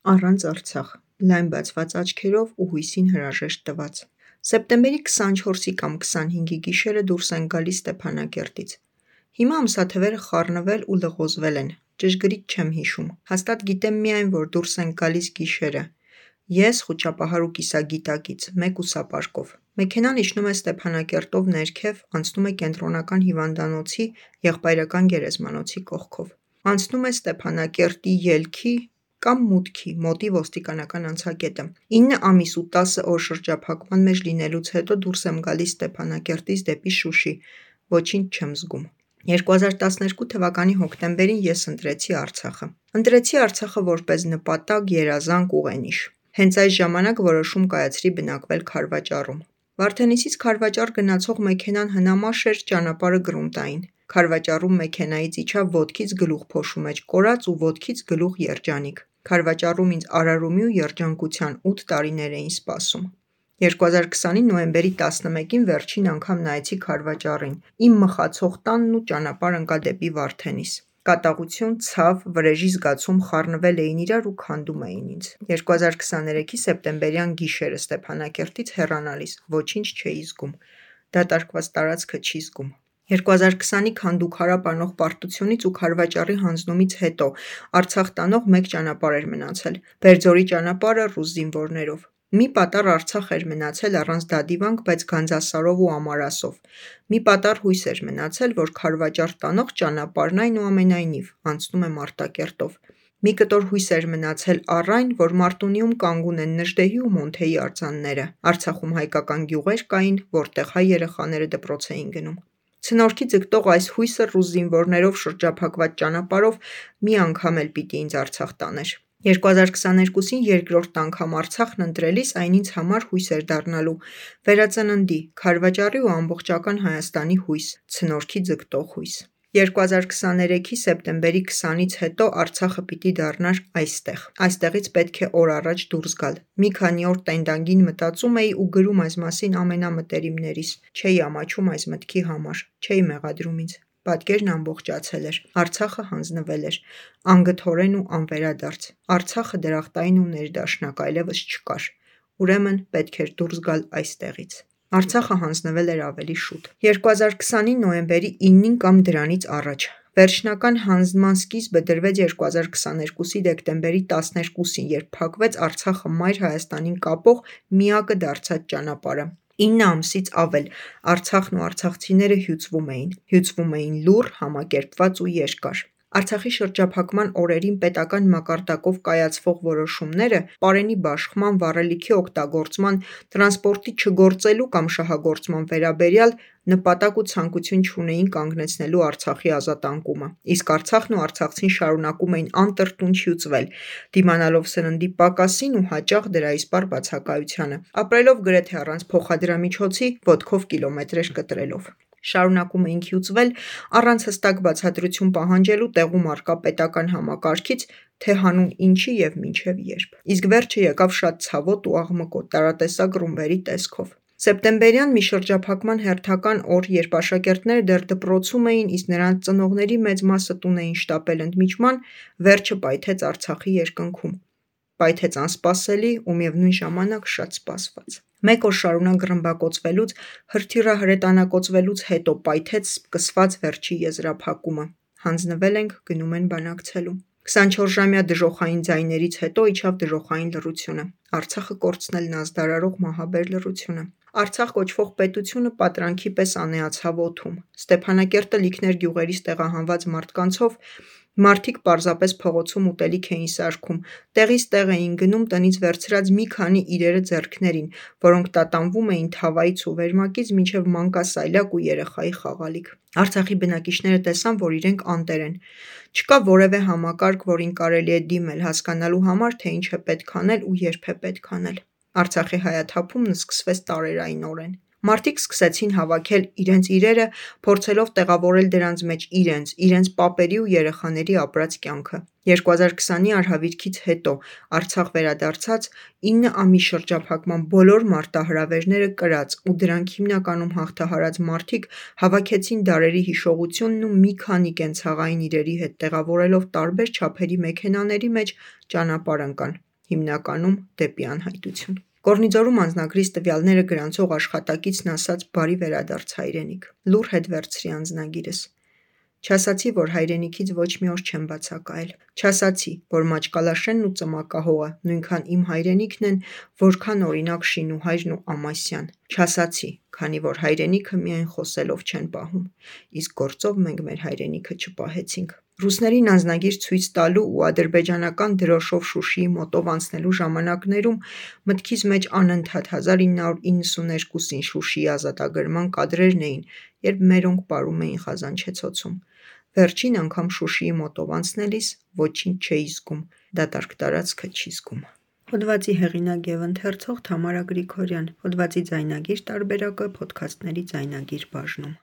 Առանց Արցախ, լայն բացված աչքերով ու հույսին հրաժեշտ տված։ Սեպտեմբերի 24-ի կամ 25-ի գիշերը դուրս են գալիս Ստեփանակերտից։ Հիմա ամսաթվերը խառնվել ու լղոզվել են, ճշգրիտ չեմ հիշում, հաստատ գիտեմ միայն, որ դուրս են գալիս գիշերը։ Ես խուճապահար ու կիսագիտակից, մեկ ուսապարկով։ Մեքենան իջնում է Ստեփանակերտով ներքև, անցնում է Կենտրոնական հիվանդանոցի եղբայրական գերեզմանոցի կողքով։ Անցնում է Ստեփանակերտի ելքի կամ մուտքի մոտի ոստիկանական անցակետը։ 9 ամիս ու 10 օր շրջափակման մեջ լինելուց հետո դուրս եմ գալիս Ստեփանակերտից դեպի Շուշի, ոչինչ չեմ զգում։ 2012 թվականի հոկտեմբերին ես ընտրեցի Արցախը։ Ընտրեցի Արցախը որպես նպատակ, երազանք, ուղենիշ։ Հենց այս ժամանակ որոշում կայացրի բնակվել Քարվաճառում։ Վարդենիսից Քարվաճառ գնացող մեքենան հնամաշ էր, ճանապարհը գրունտային։ Քարվաճառում մեքենայից իջա ոտքից գլուխ փոշու մեջ կորած ու ոտքից գլուխ երջանիկ։ Քարվաճառում ինձ արարումի ու երջանկության 8 տարիներ էին սպասում։ 2020-ի նոյեմբերի 11-ին վերջին անգամ նայեցի Քարվաճառին։ Իմ մխացող տանն ու ճանապարհ ընկա դեպի Վարդենիս։ Կատաղություն, ցավ, վրեժի զգացում խառնվել էին իրար ու քանդում էին ինձ։ 2023-ի սեպտեմբերյան գիշերը Ստեփանակերտից հեռանալիս ոչինչ չէի զգում։ Դատարկված տարածքը չի զգում։ 2020-ի քանդուքարապ անող պարտությունից ու Քարվաճառի հանձնումից հետո Արցախ տանող մեկ ճանապարհ էր մնացել՝ Բերձորի ճանապարհը ռուս զինվորներով։ Մի պատառ Արցախ էր մնացել առանց դադիվանք, բայց Գանձասարով ու Ամարասով։ Մի պատառ հույս էր մնացել, որ Քարվաճառ տանող ճանապարհն այնուամենայնիվ անցնում է Մարտակերտով։ Մի կտոր հույս էր մնացել առ այն, որ Մարտունիում կանգուն են Նժդեհի ու Մոնթեի արձանները։ Արցախում հայկական գյուղեր կային, որտեղ հայ երեխաները դպրոց էին գնում։ Ցնորքի ձգտող այս հույսը ռուս զինվորներով շրջափակված ճանապարհով մի անգամ էլ պիտի ինձ Արցախ տաներ։ 2022-ին երկրորդ անգամ Արցախն ընտրելիս այն ինձ համար հույս էր դառնալու վերածննդի, Քարվաճառի ու ամբողջական Հայաստանի հույս, ցնորքի ձգտող հույս։ 2023-ի սեպտեմբերի 20-ից հետո Արցախը պիտի դառնար այստեղ։ Այստեղից պետք է օր առաջ դուրս գալ։ Մի քանի օր տենդանգին մտածում էի ու գրում այս մասին ամենամտերիմներիս։ Չէի ամաչում այս մտքի համար, չէի մեղադրում ինձ։ Պատկերն ամբողջացել էր։ Արցախը հանձնվել էր։ Անգթորեն ու անվերադարձ։ Արցախը դրախտային ու ներդաշնակ այլևս չկար։ Ուրեմն պետք էր դուրս գալ այստեղից։ Արցախը հանձնվել էր ավելի շուտ։ 2020-ի նոյեմբերի 9-ին կամ դրանից առաջ։ Վերջնական հանձնման սկիզբը դրվեց 2022-ի դեկտեմբերի 12-ին, երբ փակվեց Արցախը մայր Հայաստանին կապող միակը դարձած ճանապարհը։ 9 ամսից ավել Արցախն ու արցախցիները հյուծվում էին լուռ, համակերպված ու երկար։ Արցախի շրջափակման օրերին պետական մակարդակով կայացվող որոշումները պարենի բաշխման, վառելիքի օգտագործման, տրանսպորտի չգործելու կամ շահագործման վերաբերյալ նպատակ ու ցանկություն չունեին կանգնեցնելու Արցախի ազատանկումը, իսկ Արցախն ու արցախցին շարունակում էին անտրտունջ հյուծվել, դիմանալով սննդի պակասին ու հաճախ դրա իսպառ բացակայությանը, ապրելով գրեթե առանց փոխադրամիջոցի, ոտքով կիլոմետրեր կտրելով։ Շարունակում էինք հյուծվել առանց հստակ բացատրություն պահանջելու տեղում առկա պետական համակարգից, թե հանուն ինչի և մինչև երբ։ Իսկ վերջը եկավ շատ ցավոտ ու աղմկոտ, տարատեսակ ռումբերի տեսքով։ Սեպտեմբերյան մի շրջափակման հերթական օր, երբ աշակերտները դեռ դպրոցում էին, իսկ նրանց ծնողների մեծ մասը տուն էին շտապել ընդմիջման, վերջը պայթեց Արցախի երկնքում։ Պայթեց անսպասելի ու միևնույն ժամանակ շատ սպասված։ Մեկ օր շարունակ ռմբակոծվելուց, հրթիռահրետանակոծվելուց հետո պայթեց սկսված վերջի եզրափակումը։ Հանձնվել ենք, գնում են բանակցելու։ 24-ժամյա դժոխային ձայներից հետո իջավ դժոխային լռությունը։ Արցախը կորցնելն ազդարարող մահաբեր լռությունը։ Արցախ կոչվող պետությունը պատրանքի պես անեացավ օդում։ Ստեփանակերտը լիքներ գյուղերից տեղահանված մարդկանցով, մարդիկ պարզապես փողոցում ուտելիք էին սարքում, տեղից տեղ էին գնում տնից վերցրած մի քանի իրերը ձեռքներին, որոնք տատանվում էին թավայից ու վերմակից մինչև մանկասայլակ ու երեխայի խաղալիք։ Արցախի բնակիչները տեսան, որ իրենք անտեր են։ Չկա որևէ համակարգ, որին կարելի է դիմել, հասկանալու համար, թե ինչ է պետք անել ու երբ է պետք անել։ Արցախի հայաթափումն սկսվեց տարերայնորեն։ Մարդիկ սկսեցին հավաքել իրենց իրերը, փորձելով տեղավորել դրանց մեջ իրենց պապերի ու երեխաների ապրած կյանքը։ 2020-ի արհավիրքից հետո Արցախ վերադարձած 9 ամիս շրջափակման բոլոր մարտահրավերները կրած ու դրանք հիմնականում հաղթահարած մարդիկ հավաքեցին դարերի հիշողությունն ու մի քանի կենցաղային իրերի հետ տեղավորելով տարբեր չափերի մեքենաների մեջ ճանապարհ ընկան։ հիմնականում դեպի անհայտություն։ Կորնիձորում անձնագրից տվյալները գրանցող աշխատակիցն ասաց բարի վերադարձ հայրենիք։ Լուռ հետ վերցրի անձնագիրս։ Չասացի, որ հայրենիքից ոչ մի օր չեմ բացակայել։ Չասացի, որ Մաճկալաշենն ու Ծմակահողը նույնքան իմ հայրենիքն են, որքան օրինակ Շինուհայրն ու Ամասյան։ Չասացի, քանի որ հայրենիքը միայն խոսելով չեն պահում, իսկ գործով մենք մեր հայրենիքը չպահեցինք։ Ռուսներին անձնագիր ցույց տալու ու ադրբեջանական դրոշով Շուշիի մոտով անցնելու ժամանակներում մտքիս մեջ անընդհատ 1992-ին Շուշիի ազատագրման կադրերն էին, երբ մերոնք պարում էին Խազանչեցոցում։ Վերջին անգամ Շուշիի մոտով անցնելիս ոչինչ չէի զգում, դատարկ տարածքը չի զգում։ Հոդվածի հեղինակ և ընթերցող Թամարա Գրիգորյան։ Հոդվածի ձայնագիր տարբերակը Փոդքասթների ձայնագիր բաժնում։